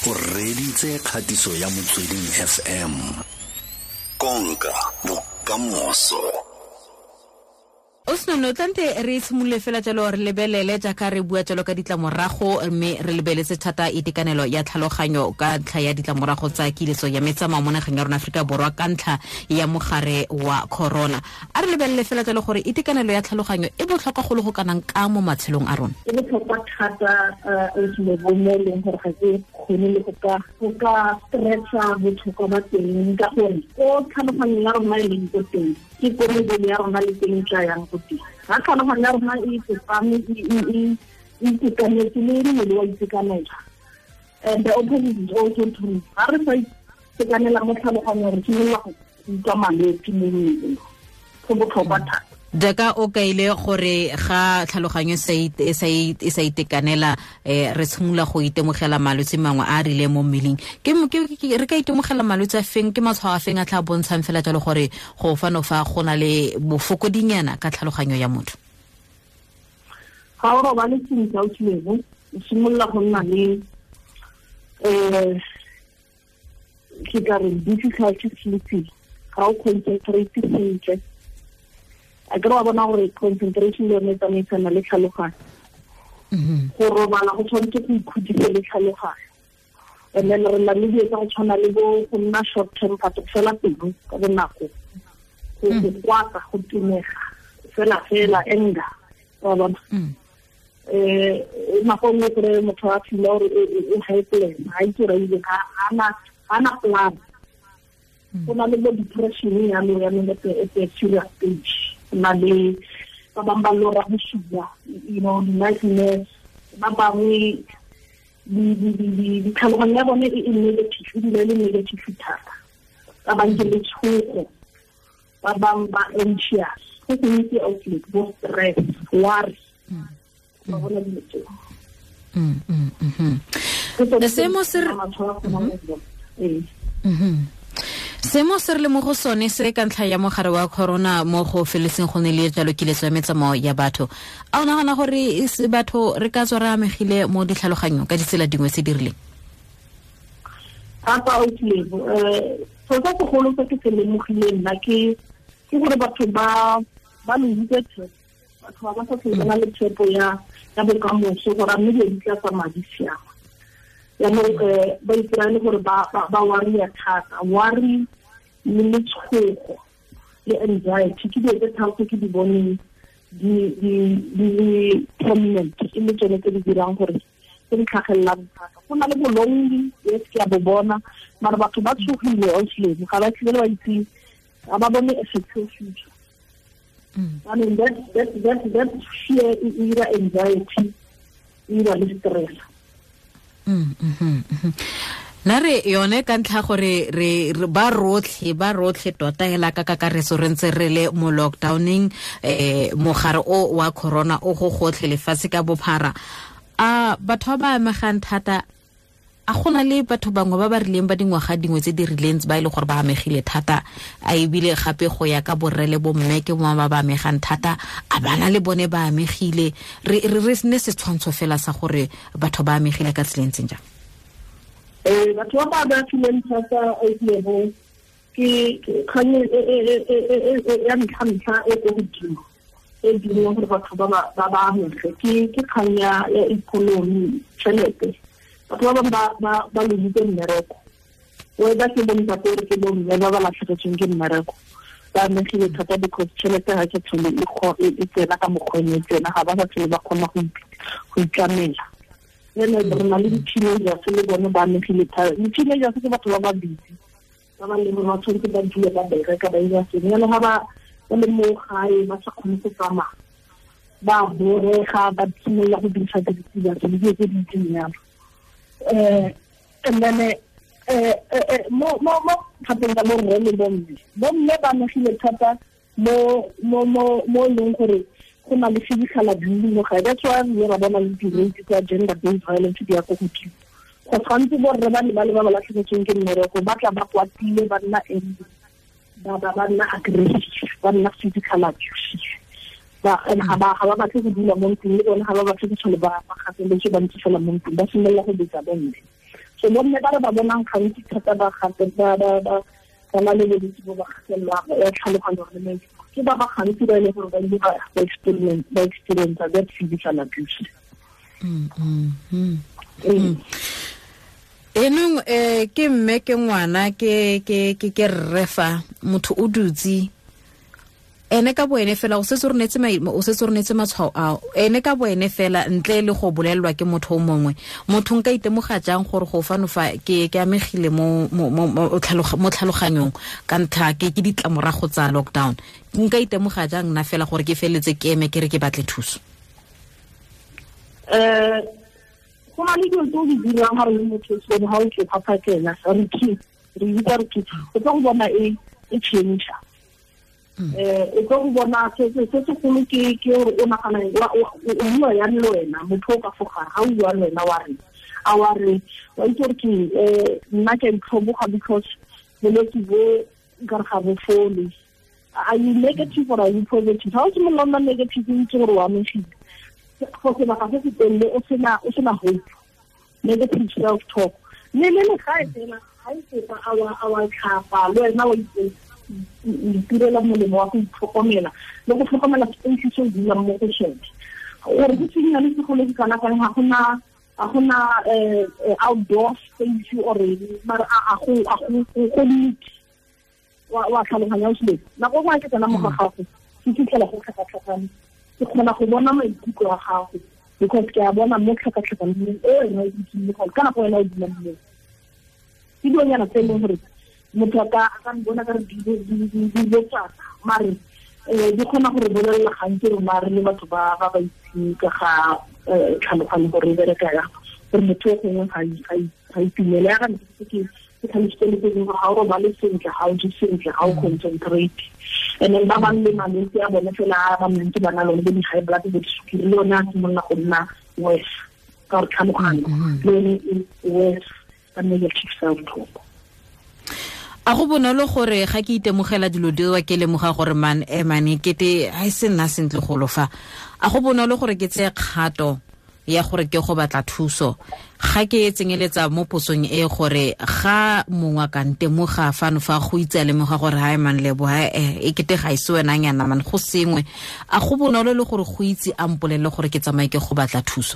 O reditse kgatiso ya Motsweding FM. Konka bokamoso. O senono tlante re tshimolole fela jalo re lebelele jaaka re bua jalo ka ditlamorago, mme re lebeletse thata itekanelo ya tlhaloganyo ka ntlha ya ditlamorago tsa kiletso ya metsamao mo nageng ya rona Aforika Borwa ka ntlha ya mogare wa corona. A re lebelele fela jalo gore itekanelo ya tlhaloganyo e botlhokwa go le go kanang ka mo matshelong a rona. E botlhokwa thata, o mo e leng gore ga ke kgone le go ka stretcha botlhokwa ba teng, ka gore ko tlhaloganyo ya rona e leng ko teng ke ko mebele ya rona le teng tla yang ko teng. Ga tlhaloganyo ya rona e tsepame, e itekanetse, le mmele wa itekanela. And the opposite is also true. Ga re sa itekanela mo tlhaloganyong, re simolola go utlwa malwetse mo mmeleng. Go botlhokwa thata. Jaaka o kaile gore ga tlhaloganyo e sa itekanela, re tshimolola go itemogela malwetse mangwe a a rileng mo mmeleng. Ke re ka itemogela malwetse a feng, ke matshwao a feng a tla bontshang fela jalo gore go fano fa go na le bofokodinyana ka tlhaloganyo ya motho? Ga o robale sentle, o tshilego, o simolola go nna le ke ka re difficulty sleeping, ga o concentrate sentle. A ke re wa bona gore concentration le yone e tsamaisana le tlhaloganyo. Go robala go tshwanetse go ikhudise le tlhaloganyo. And then re na le dilo tsa go tshwana le bo go nna short temper, go fela pelo ka bonako, go kwata, go timega, fela fela anger, wa bona. Nako nngwe kry motho a feel gore o helpless, ga itse gore ga ana plan. Go na le bo depression yalo yanong at a serious stage. Na le ba bangwe ba lora bosula, you know, nightmares, ba bangwe ditlhaloganyo ya bone e negative, e dula e le negative thata. Ba bangwe ke letshogo, ba bangwe ba anxious, go gontsi outlet, bo stress, worry, ba bona dilo tseo. Seemo se re le mo go sone se ka ntlha ya mogare wa corona mo go feletseng go ne le jalo kiletso ya metsamao ya batho. A o nagana gore batho re ka tswa re amegile mo ditlhaloganyong ka ditsela dingwe tse di rileng? Thata o tlile, so sa segolo se ke se lemogileng nna ke gore batho ba lositse tshepo. Batho ba ba sa tlhole ba na le tshepo ya bokamoso gore a mme dilo di tla tsamaya di siama. Jaanong ba ipolaya le gore ba worry-a thata, worry le letshogo le anxiety ke dilo tse tharo tse ke di boneng di le prominent, e le tsone tse di dirang gore tse di tlhagelelang thata. Go na le bolongi, yes, ke a bo bona, mara batho ba tshogile honestly, ga ba tlhole ba itse, ga ba bone a secure future. I mean, that fear e dira anxiety, e dira le stress. Na re yone ka ntlha gore re ba rotlhe tota hela ka kakaretso re ntse re le mo lockdowning, mogare o wa corona o go gotlhe lefatshe ka bophara. A batho ba ba amegang thata, a gona le batho bangwe ba ba rileng ba dingwaga dingwe tse di rileng ba e le gore ba amegile thata, a ebile gape go ya ka borre le bomme ke bongwe ba ba amegang thata, a bana le bone ba amegile. Re ne setshwantsho fela sa gore batho ba amegile ka tsela e ntseng jang? Batho ba ba amegileng thata ke kgang ya ntlha-ntlha e ko godimo e dirang gore batho ba ba amege ke kgang ya ikonomi, tšhelete. Batho ba bangwe ba lositse mmereko, whether ke bontate or ke bomme ba ba latlhegetsweng ke mmereko, ba amegile thata because tšhelete ga ke tlhole e tsena ka mokgwa e tsena, ga ba sa tlhole ba kgona go itlamela. Then re na le di-teenagers le bone ba amegile thata. Di-teenagers ke batho ba ba busy, ba ba leng gore ba tshwanetse ba dule ba bereka ba ira sengwe, jaanong ga ba le mo gae ba sa kgone go tsamaya, ba borega, ba simolola go dirisa diritibatsi le dilo tse di ntseng jalo. And then mo thateng ka borre le bomme, bomme ba amegile thata mo leng gore go na le physical abuse mo gae. That's why re ra bona le di-rate tsa gender based violence di ya ko godimo. Go tshwanetse borre ba le ba le ba ba latlhegetsweng ke mmereko ba tla ba kwatile, ba nna angry, ba nna aggressive, ba nna physical abusive. Ga ba batle go dula mo ntlong le bone, ga ba batle go tlhole ba gateletswe ba ntse fela mo ntlong, ba simolola go betsa bomme. So bomme ba re ba bonang gantsi thata ba gape ba ba na le bolwetse bo ba kgatelelo ya tlhaloganyo le maikutlo, ke ba ba gantsi ba e leng gore ba ile ba experience that physical abuse. Enong ke mme ke ngwana ke ke ke ke rre fa motho o dutse ene ka boene fela o setse o renetse matshwao ao ene ka boene fela ntle le go bolelelwa ke motho o mongwe. Motho nka itemoga jang gore go fano fa ke amegile mo tlhaloganyong ka ntlha ke ditlamorago tsa lockdown? Nka itemoga jang nna fela gore ke feletse ke eme ke re ke batle thuso? Go na le dilo tse o di dirang ga re le motho so ga o tloga phakela re bitsa re o tlo go bona e change. O tlo go bona se segolo ke gore o nagana o bua yang le wena motho o ka fo gare ga o bua le wena wa re a wa re wa itse gore ke nna ke a itlhoboga because bolwetse bo nkare ga bo fole. Are you negative or are you positive? Ga o simolola nna negative o itse gore o amegile go sebaka se se telele o sena hope, negative self talk. Le le gae fela ga e feta a wa tlhapa le wena wa itirela molemo wa go itlhokomela le go tlhokomela space se o dulang mo go sone gore go tsenyane segolo ke kana kang ga gona outdoor space or mara a go neat wa tlhaloganya o sele nako nngwe ke tsena mo ga gago ke fitlhela go tlhakatlhakane, ke kgona go bona maikutlo a gago because ke a bona mo tlhakatlhakaneng e wena o dutseng mo ka nako wena o dulang mo. Ke dilonyana tse e leng gore motho a ka bona ka re dilo tsaka mare di kgona gore bolelela gantsi rona re le batho ba ba itseng ka ga tlhaloganyo gore e bereka yang, gore motho o gongwe ga itumele ya ga ntse ke tlhalositse le tse dingwe gore ga o robale sentle, ga o je sentle, ga o concentrate. And then ba bangwe le malwetse a bone fela a ba ntse ba na lone bo di-high blood bo disukiri le yone a simolola go nna worse ka gore tlhaloganyo le yone e worse ka negative self talk. A go bonolo gore ga ke itemogela dilo dilo ke lemoga gore man emane kete ha e se nna sentle golo fa, a go bonolo gore ke tseye kgato ya gore ke go batla thuso ga ke tsenyeletsa mo posong e gore ga mongwe ka ntemoga fano fa go itse a lemoga gore ha e man lebo ha e kete ga e se wena nyana man go sengwe, a go bonolo le gore go itse a mpolelle gore ke tsamaye ke go batla thuso?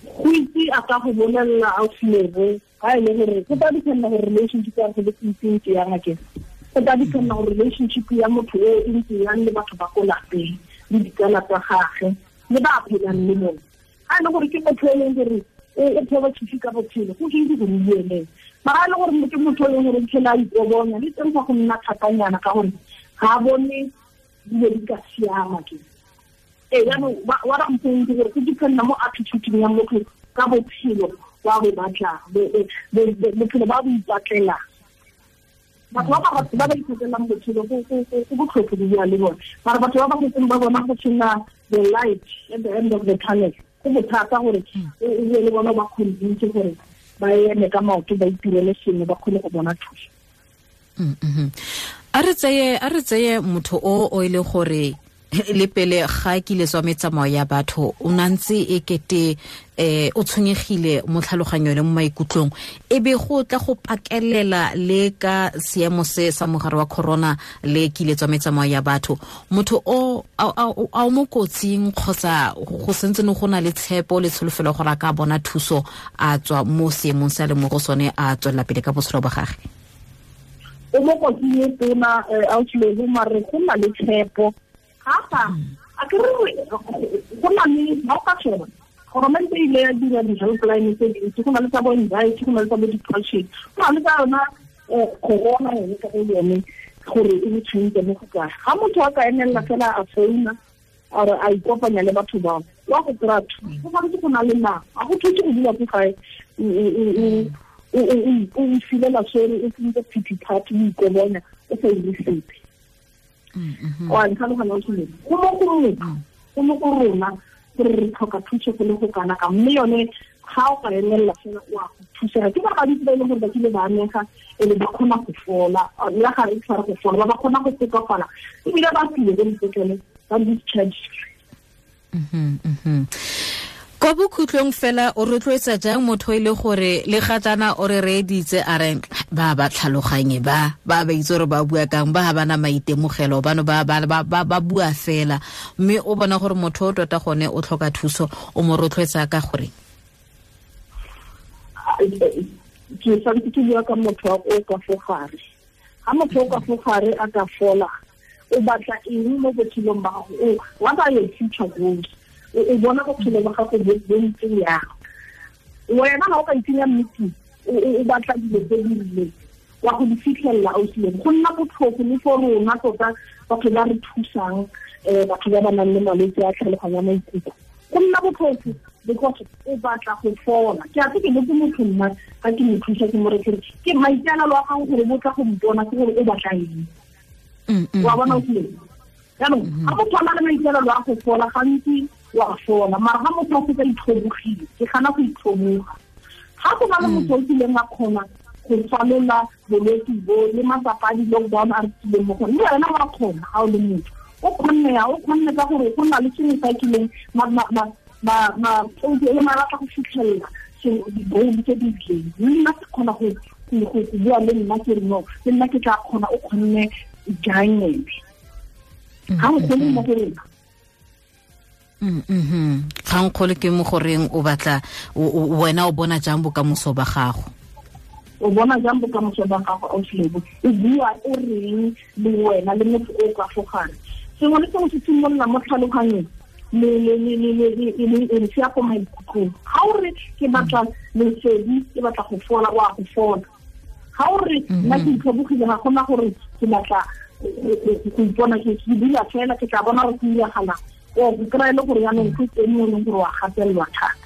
Go itse a ka go bolelela ausi ga e le gore go tla dependa gore relationship ya go ntse yang ake, go tla dependa gore relationship ya motho o e ntse yang le batho ba ko lapeng le ditsala tsa gagwe le ba phelang le bone. Ga e le gore ke motho e leng gore o positive ka botshelo go itse gore o buele, mara ga e le gore ke motho e leng gore phela a ikobonya le teng fa go nna thatanyana ka gore ga a bone dilo di ka siama ke. Jaanong wa ra mpong ke gore go dependa mo attitude ya motho ka bophelo wa bo batla bophelo ba bo ipatlelang. Batho ba ba ipatlelang botshelo go botlhofo go bua le bone, mara batho ba ba setseng ba bona go sena the light at the end of the tunnel go bothata gore o bue le bona ba convince gore ba eme ka maoto ba itirele sengwe ba kgone go bona thuso. A re tseye motho o e le gore le pele ga ke le tswa metsamao ya batho o nantse e kete o tshwenyegile mo tlhaloganyong le mo maikutlong, e be go tla go pakelela le ka seemo se sa mogare wa corona le kile tswa metsamao ya batho, motho o a mo kotsing kgotsa go sentse ne go na le tshepo le tsholofelo gore a ka bona thuso a tswa mo seemong se a le mo go sone a tswelela pele ka botshelo ba gagwe? O mo kotsing e tona ausi mare go na le tshepo gafa a ke re go na le ba ka sheba government e ile ya dira di-helpline tse dintsi, go na le tsa bo anxiety, go na le tsa bo depression, go na le tsa yona corona yone ka go yone gore e tshwentse mo go kae. Ga motho a ka emelela fela a founa or a ikopanya le batho bao wa go kry-a thuso, go tshwanetse go na le nako, ga go thuse go dula ko gae o filela sore o tsentse pity party o ikobonya o sa ire sepe. Wa ntlhaloganya o tshwanetse go mo go motho go mo go rona gore re tlhoka thuso go le go kana ka, mme yone ga o ka emelela fela o a go thusega. Ke ba gantsi ba e leng gore ba kile ba amega e le ba kgona go fola, le ga re tshwara go fola ba kgona go tokafala ebile ba tsile ko dipetlele ba discharge. Kwa bokhutlong fela o rotloetsa jang motho e le gore le ga jaana o re reeditse a re ba ba tlhaloganye ba ba itse gore ba bua kang, ba ga bana maitemogelo bano ba ba bua fela, mme o bona gore motho o tota gone o tlhoka thuso, o mo rotloetsa ka gore? Ke santse ke bua ka motho o ka fo gare. Ga motho o ka fo gare a ka fola, o batla eng mo botshelong ba gago? What are your future goals? O bona bophelo ba gago bo ntse yang? Wena ga o ka itsenya meeting, o batla dilo tse di rileng, wa go di fitlhelela ausileng. Go nna botlhofo le for rona tota batho ba re thusang, batho ba ba nang le malwetse a tlhaloganyo ya maikutlo. Go nna botlhofo because o batla go fola. Ke a tse ke botse motho nna ga ke mo thusa ke mo re ke maikaelelo a gago gore bo tla go mpona ke gore o batla eng. Wa bona ausileng? Jaanong ga motho a na le maikaelelo a go fola gantsi wa fola, mara ga motho a setse a itlhobogile, ke gana go itlhoboga. Ga go na le motho o kileng a kgona go falola bolwetse bo le matsapa a di-lockdown a re tswileng mo go one, le wena wa kgona ga o le motho. O kgonne ya, o kgonne ka gore go na le sengwe sa kileng ma batla go fitlhelela di-goal tse di rileng. Le nna ke kgona go bua le nna ke re no, le nna ke tla kgona, o kgonne jang ene? Ga o kgone mo go rena. Kgangkgolo ke mo goreng o batla wena o bona jang bokamoso ba gago? O bona jang bokamoso ba gago ausilebo? O bua o reng le wena le motho o ka fo gare? Sengwe le sengwe se simolola mo tlhaloganyong le se ya ko maikutlong. Ga o re ke batla lesedi, ke batla go fola, wa go fola. Ga o re nna ke itlhobogile, ga gona gore ke batla go ipona ke dula fela, ke tla bona gore go iragalang. O go kry-e le gore jaanong go teng mo e leng gore wa gatelelwa thata.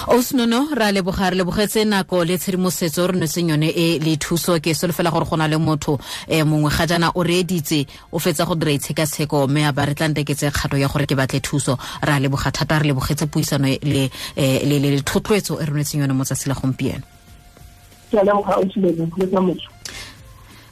Osnono, ra leboga, re lebogetse nako le tshedimosetso re nwetseng yone e le thuso. Ke solofela gore go na le motho mongwe ga jaana o reeditse, o fetsa go dira itshekatsheko mme a ba re tla nteketse kgato ya gore ke batle thuso. Ra leboga thata, re lebogetse puisano le le thotloetso e re nwetseng yone mo tsatsi la gompieno. Ke a leboga, Ausilebo, le ka moso.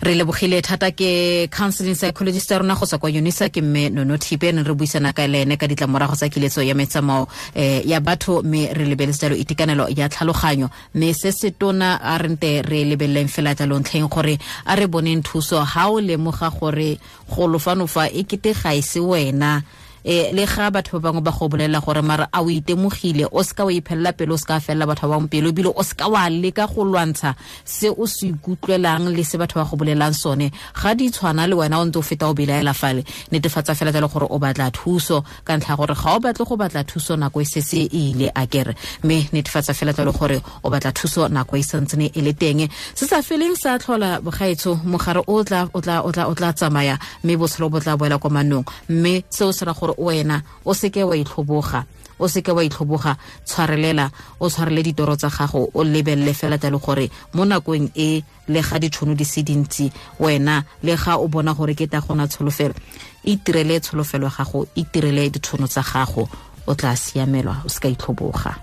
Re lebogile thata ke counseling psychologist ya rona go tswa kwa Unisa, ke mme Nono Thipe, ne re buisana ka le ene ka ditlamorago tsa kiletso ya metsamao ya batho, mme re lebeletse jalo itekanelo ya tlhaloganyo. Mme se se tona a re nte re lebeleleng fela jalo ntlheng gore a re boneng thuso. Ha o lemoga gore go lofanofa e kete ga e se wena, le ga batho ba bangwe ba go bolela gore mara a o itemogile, o seka wa iphelela pele, o seka felela batho ba bangwe pele, ebile o seka wa leka go lwantsha se o se ikutlwelang le se batho ba go bolelang sone. Ga di tshwana le wena o ntse o feta o belaela fale, netefatsa fela jalo gore o batla thuso, ka ntlha gore ga o batle go batla thuso nako e setse e ile a kere, mme netefatsa fela jalo gore o batla thuso nako e santsene e le teng. Se sa feleng sa tlhola bogaetsho, mogare o tla tsamaya mme botshelo bo tla boela kwa manong, mme seo se ra gore wena o seke wa itlhoboga, o seke wa itlhoboga, tshwarelela, o tshwarele ditoro tsa gago, o lebelele fela jalo gore mo nakong e le ga ditšhono di se dintsi, wena le ga o bona gore ke ta gona tsholofelo, itirele tsholofelo ya gago, itirele ditšhono tsa gago, o tla siamelwa, o seka itlhoboga.